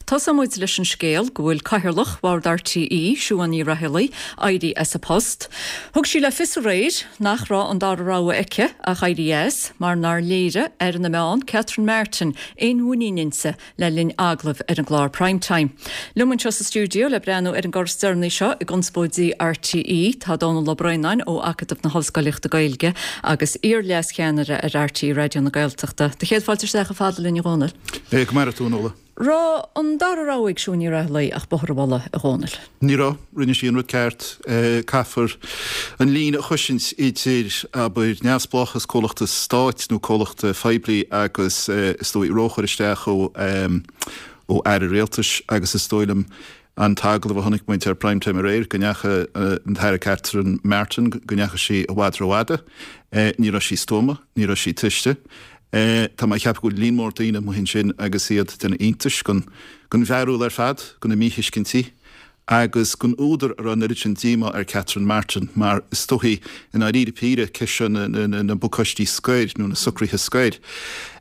Tosóidh muid leis an scéal go bhfuil Cathaoirleach Bhord RTÉ, Siún Ní Raghallaigh, éirithe as a post. Thug sí le fios aréir nach raibh an dara rogha aici ach éirí as mar nár léirigh Aire na Meán, Catherine Martin, aon mhuinín inti le linn agallaimh ar an gclár Prime Time. Liom anseo sa stiúideo le breathnú ar an gcor is deireanaí seo i gconspóidí RTÉ tá Dónall Ó Braonáin ó Acadamh na hOllscolaíochta Gaeilge agus iar-leascheannaire ar RTÉ Raidió na Gaeltachta. Do chéad fáilte isteach chomh fada linn a Dhónaill. Go maire tú, a Nuala. Raibh an dara rogha ag Siún Ní Raghallaigh ach bóthar a mholadh, a Dhónaill? Ní raibh. Rinne sí an rud ceart. Caithfear an líne a chosaint idir, abair, neamhspleáchas comhlachta stáit nó comhlachta phoiblí agus, is dóigh, róchur isteach ó ó aire rialtais agus is dóigh liom an t-agallamh a chonaic muid ar Prime Time aréir, go ndeachaigh an tAire Catherine Martin, go ndeachaigh sí i bhfad rófhada. Ní raibh sí stuama, ní raibh sí tuiste. Tá mé ag ceapadh go bhfuil líon mór daoine amuigh ansin agus iad ag déanamh iontais den bhfearúil ar fad, de na míthuiscintí agus den údar a raibh an oiread sin díomá ar Catherine Martin mar is dóichí i ndáiríre píre ceist seo na bpacáistí scoir nó na socruithe scoir,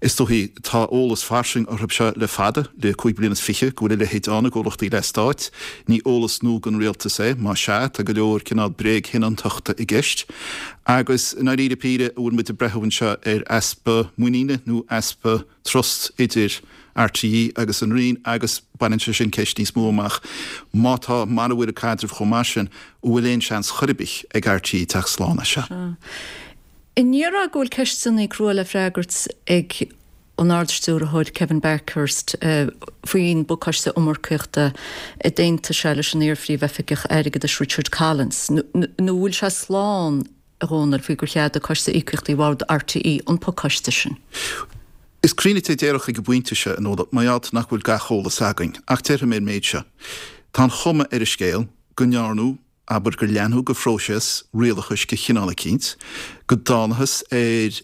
is dóichí tá eolas fairsing orthu seo le fada, le 25 bliana, go bhfuil a leithéid ann i gcomhlachtaí leathstáit. Ní eolas nua don rialtas é, más ea, tá go leor cineál bréagshoineantachta i gceist. Agus i ndáiríre píre, an bhfuil muid ag breathú anseo ar easpa muiníne nó easpa trust idir RTÉ agus an Roinn agus baineann sé sin ceist níos mó amach, má tá, mara bhfuil an caidreamh chomh maith sin, an bhfuil aon seans chor ar bith ag RTÉ teacht slán as seo? An ndéarfá go bhfuil ceisteanna crua le freagairt ag an Ard-Stiúrthóir Kevin Bakhurst faoin bpacáiste iomarcaíochta a d'aontaigh sé leis an iar-Phríomh-Oifigeach Airgeadais Richard Collins, nó an bhfuil sé slán, a Dhónaill, faoi gur cheadaigh Coiste Íocaíochtaí Bhord RTÉ an pacáiste sin? Is cruinne a déarfadh ag an bpointe seo, a Nuala, mar gheall nach bhfuil gach eolas againn, ach déarfaidh mé an méid seo. Tá an chuma ar an scéal go ndearnadh abair gur leanadh de phróiseas rialachais de chineál eicínt, go dtánathas ar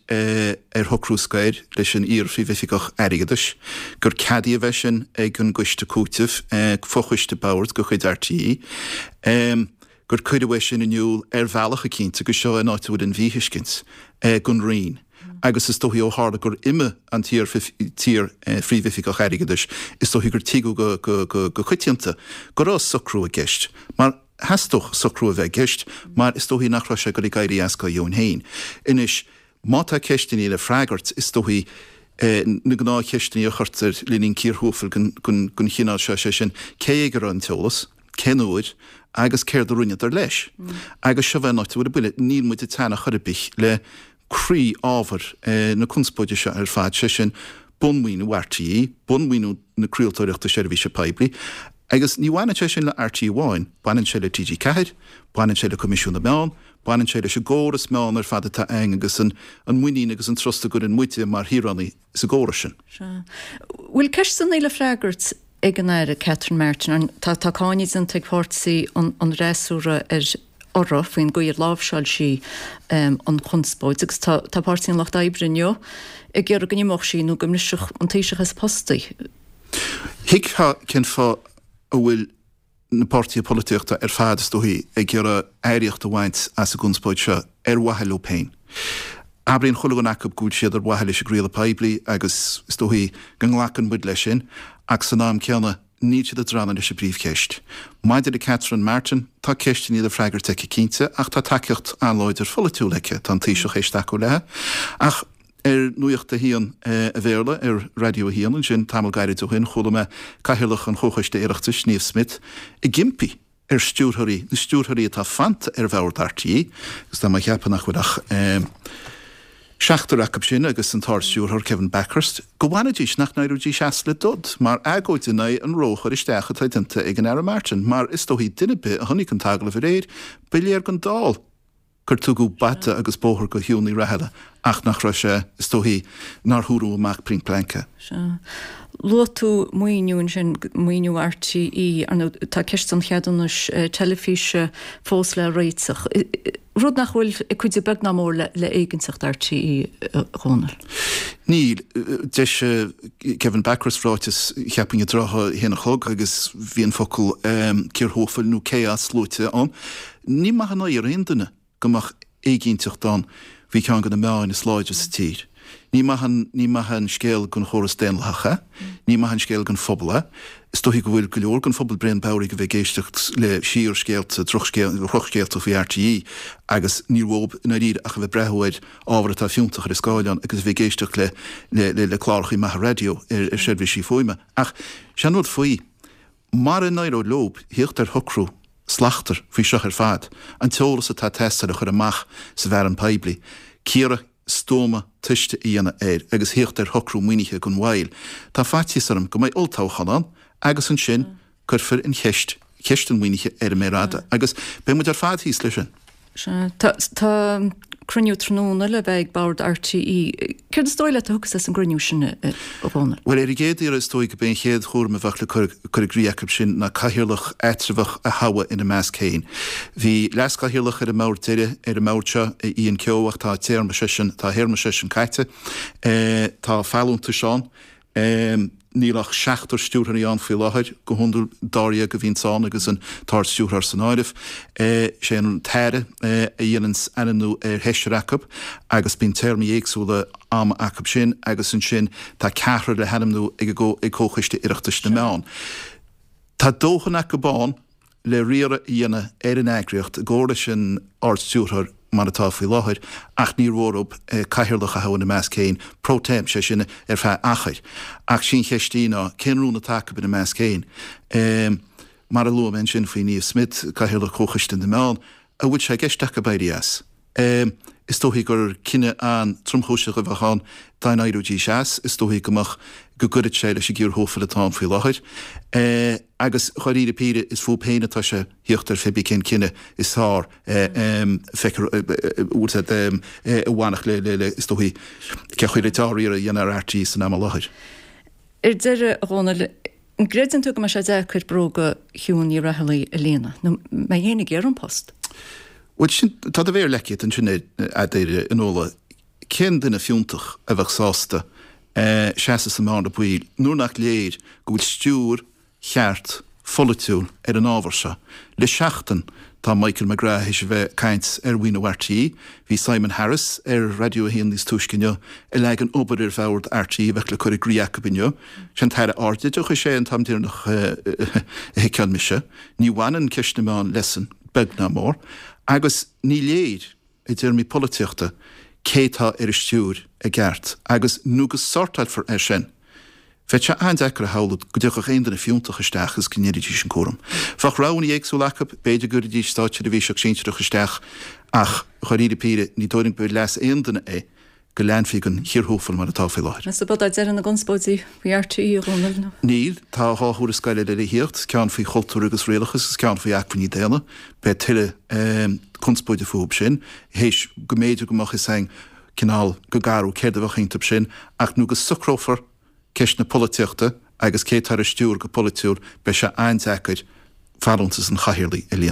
ar shocrú scoir leis an iar-Phríomhoifigeach Airgeadais, gur ceadaíodh é sin ag an gCoiste Cúitimh, fochoiste boird de chuid RTÉ, gur cuireadh é sin in iúl ar bhealach eicínt, agus seo an áit a bhfuil an mhíthuiscint, don Roinn. Agus is dóichí ó tharla gur imigh an t-iar-Phríomhoifigeach Airgeadais, is dóichí gur tuigeadh go coitianta go raibh socrú i gceist, mar theastódh socrú a bheith i gceist, mar is dóichí nach raibh sé ag dul ag éirí as dá dheoin féin. Anois, má tá ceisteanna le freagairt, is dóichí na gnáthcheisteanna a chuirtear le linn cíor thuafail den chineál seo, sé sin, cé ag a raibh an t-eolas, cén uair agus céard a rinneadar leis. Agus seo é an áit a bhfuil an buille, níl muid ag teannadh chor ar bith le croí-ábhar na conspóide seo ar fad, sé sin, bunmhaoiniú RTÉ, bunmhaoiniú na craoltóireachta seirbhíse poiblí. Agus ní bhaineann sé sin le RTÉ amháin, baineann sé le TG4, baineann sé le Coimisiún na Meán, baineann sé leis an gcóras meán ar fad atá againn agus an muinín agus an trust a gcuireann muide mar shaoránaigh sa gcóras sin. Sea. Bhfuil ceisteanna le freagairt ag an Aire Catherine Martin? Tá tá cáineadh déanta ag páirtí an fhreasúra ar uirthi faoin gcaoi ar láimhseáil sí an chonspóid agus tá tá Páirtí an Lucht Oibre inniu ag iarraidh go n-imeodh sí nó go mbrisfeadh an Taoiseach as a post í. Thuigfeá cén fáth a bhfuil na páirtithe polaitíochta ar fad, is dóichí, ag iarraidh earraíocht a bhaint as an gconspóid seo ar mhaithe leo féin. Abraíonn chuile dhuine acu go bhfuil siad ar mhaithe leis an gcraoladh poiblí agus is dóichí go nglacann muid leis sin ach san am céanna níl siad ag drannadh leis an bpríomhcheist. Maidir le Catherine Martin, tá ceisteanna le freagairt aici cinnte ach tá tacaíocht an-láidir pholaitiúil aici, tá an Taoiseach théis tacú léi. Ach ar Nuacht a hAon a Bhéarla ar Raidió a hAon ansin tamall gairid ó shin, chuala mé Cathaoirleach an Chomhchoiste Oireachtais, Niamh Smyth, ag impí ar stiúrthóirí, na stiúrthóirí atá fanta ar bhord RTÉ, agus tá mé ag ceapadh nach bhfuil ach seachtar acu sin agus an tArd-Stiúrthóir Kevin Bakhurst, go bhfanfaidís, nach n-éireoidís as le dod, mar agóid in aghaidh an róchur isteach atá déanta ag an Aire Martin, mar is dóichí duine ar bith a chonaic an t-agallamh aréir, ba léir don dall gur tugadh bata agus bóthar do Shiún Ní Raghallaigh ach nach raibh sé, is dóichí, nár húradh amach pointe blank é. Sea. Luaigh tú maoiniú ansin, maoiniú RTÉ, ar ndóigh tá ceist an cheadúnais teilifíse fós le réiteach, rud nach bhfuil ag cuidiú beag ná mór le éiginnteacht RTÉ, a Dhónaill. Níl. D'eisigh Kevin Bakhurst ráiteas, cheapfainn, i dtrátha a haon a chlog agus bhí an focal cíor thuafail nó chaos luaite ann. Ní maith an oighear aon duine go mbeadh éiginnteacht ann faoi cheann de na meáin is láidre sa tír. Ní maith an, ní maith an scéal don chóras daonlathach é. Ní maith an scéal don phobal é. Is dóichí go bhfuil go leor den phobal bréan bodhraithe de bheith ag éisteacht le síorscéalta, drochscéalta faoi RTÉ agus níl uathu i ndáiríre ach a bheith ag breathnú ar ábhar atá fiúntach ar an scáileán agus a bheith ag éisteacht le le le clárachaí maithe raidió ar ar seirbhísí fuaime. Ach sé an rud faoi, mara n-éireoidh leob thíocht ar shocrú slachtmhar faoi seo ar fad, an t-eolas atá ag teastáil a chur amach sa bhfearann poiblí, cíoradh stuama tomhaiste a dhéanamh air agus thíocht ar shocrú maoinithe gan mhoill. Tá faitíos orm go mbeidh olltoghchán ann agus ansin cuirfear an cheist, ceist an mhaoinithe ar an méar fhada agus beidh muid ar fad thíos leis sin. Sea. Tá cruinniú tráthnóna le bheith ag Bord RTÉ. Céard is dóigh leat a thiocfas as an gcruinniú sin, a Dhónaill? Bhuel, ar an gcéad iarraidh is dóigh go b'é an chéad chúram a bheadh le cur i gcrích acu sin ná cathaoirleach eatramhach a thoghadh ina measc féin. Bhí leaschathaoirleach ar an mbord deiridh ar an mbord seo, Ian Kehoe, ach tá a téarma seisean, tá a théarma seisean caite. Tá folúntais ann. Níl ach seachtar stiúrthóirí ann faoi láthair, go hiondúil dáréag a bhíonns ann agus an tArd-Stiúrthóir san áireamh. Sé an tAire a dhéananns ainmniú ar sheisear acu agus bíonn téarmaí éagsúla ama acu sin agus ansin tá ceathrar le hainmniú ag ag Comhchoiste Oireachtais na Meán. Tá dóthain acu ann le riaradh a dhéanamh ar an eagraíocht i gcomhar leis an Ard-Stiúrthóir mar atá faoi láthair ach níor mhór dóibh cathaoirleach a thoghadh ina measc féin pro tem, sé sin ar feadh achair. Ach sí an cheist í ná cén rún atá acu ina measc féin? Mar a luaigh mé ansin faoi Niamh Smyth, Cathaoirleach Chomhchoiste na Meán, an bhfuil sé i gceist acu éirí as? Is dóichí gur cinneadh an-tromchúiseach a bheadh ann dá n-éireoidís as. Is dóichí go mbeadh, go gcuirfeadh sé leis an gciarthófal atá ann faoi láthair. Agus dháiríre píre, is fúthu féin atá sé thíocht ar phébí cén cinneadh is fearr feicfear, bhfuil a fhios agat, a bhainfeadh le, le, is dóichí, cén chaoi le dea-riaradh a dhéanamh ar RTÉ san am i láthair. Ar deireadh, a Dhónaill, An gcreideann tú go mbeidh sé deacair bróga Shiún Ní Raghallaigh a líonadh, nó an mbeidh éinne ag iarraidh an post? Bhuel, sin, tá do mhéar leagtha agat ansin air, a Nuala. Cén duine fiúntach a bheadh sásta seasamh sa mbearna baoil nuair nach léir go bhfuil stiúir cheart pholaitiúil ar an ábhar seo? Le seachtain tá Michael McGrath théis a bheith ag caint ar mhaoiniú RTÉ. Bhí Simon Harris ar Raidió 1 níos túisce inniu ag leagan obair ar bhord RTÉ a bheadh le cur i gcrích acu inniu. Sé an tAire Ardoideachais é an t-am deireanach a sheiceáil mise. Ní bhaineann ceist na meán leisean, beag ná mór. Agus ní léir, i dtéarmaí polaitíochta, cé tá ar an stiúir i gceart. Agus nó go sortáilfear é sin, Bheadh sé an-deacair a shamhlú go dtiocfadh aon duine fiúntach isteach agus go ndéanfaidís an cúram. Bheadh roghanna éagsúla acu, b'fhéidir go gcuirfidís státseirbhíseach sinsearach isteach ach, dháiríre píre, ní dóigh liom gur leas aon duine é go leanfaí den chiarthúfal mar atá faoi láthair. Meas tú ab é deireadh na gconspóidí faoi RTÉ, a Dhónaill, nó? Níl. Tá 2 thuarascáil eile le thíocht, ceann faoi chultúr agus rialachas agus ceann faoi acmhainní daonna. Beidh tuilleadh conspóide fúthu sin, théis go mb'fhéidir go mbeadh fhios againn cineál go garbh céard a bheadh iontu sin, ach nó go socrófar ceist na polaitíochta agus cé atá ar an stiúir go polaitiúil, beidh sé an-deacair folúntas an chathaoirligh a líonadh.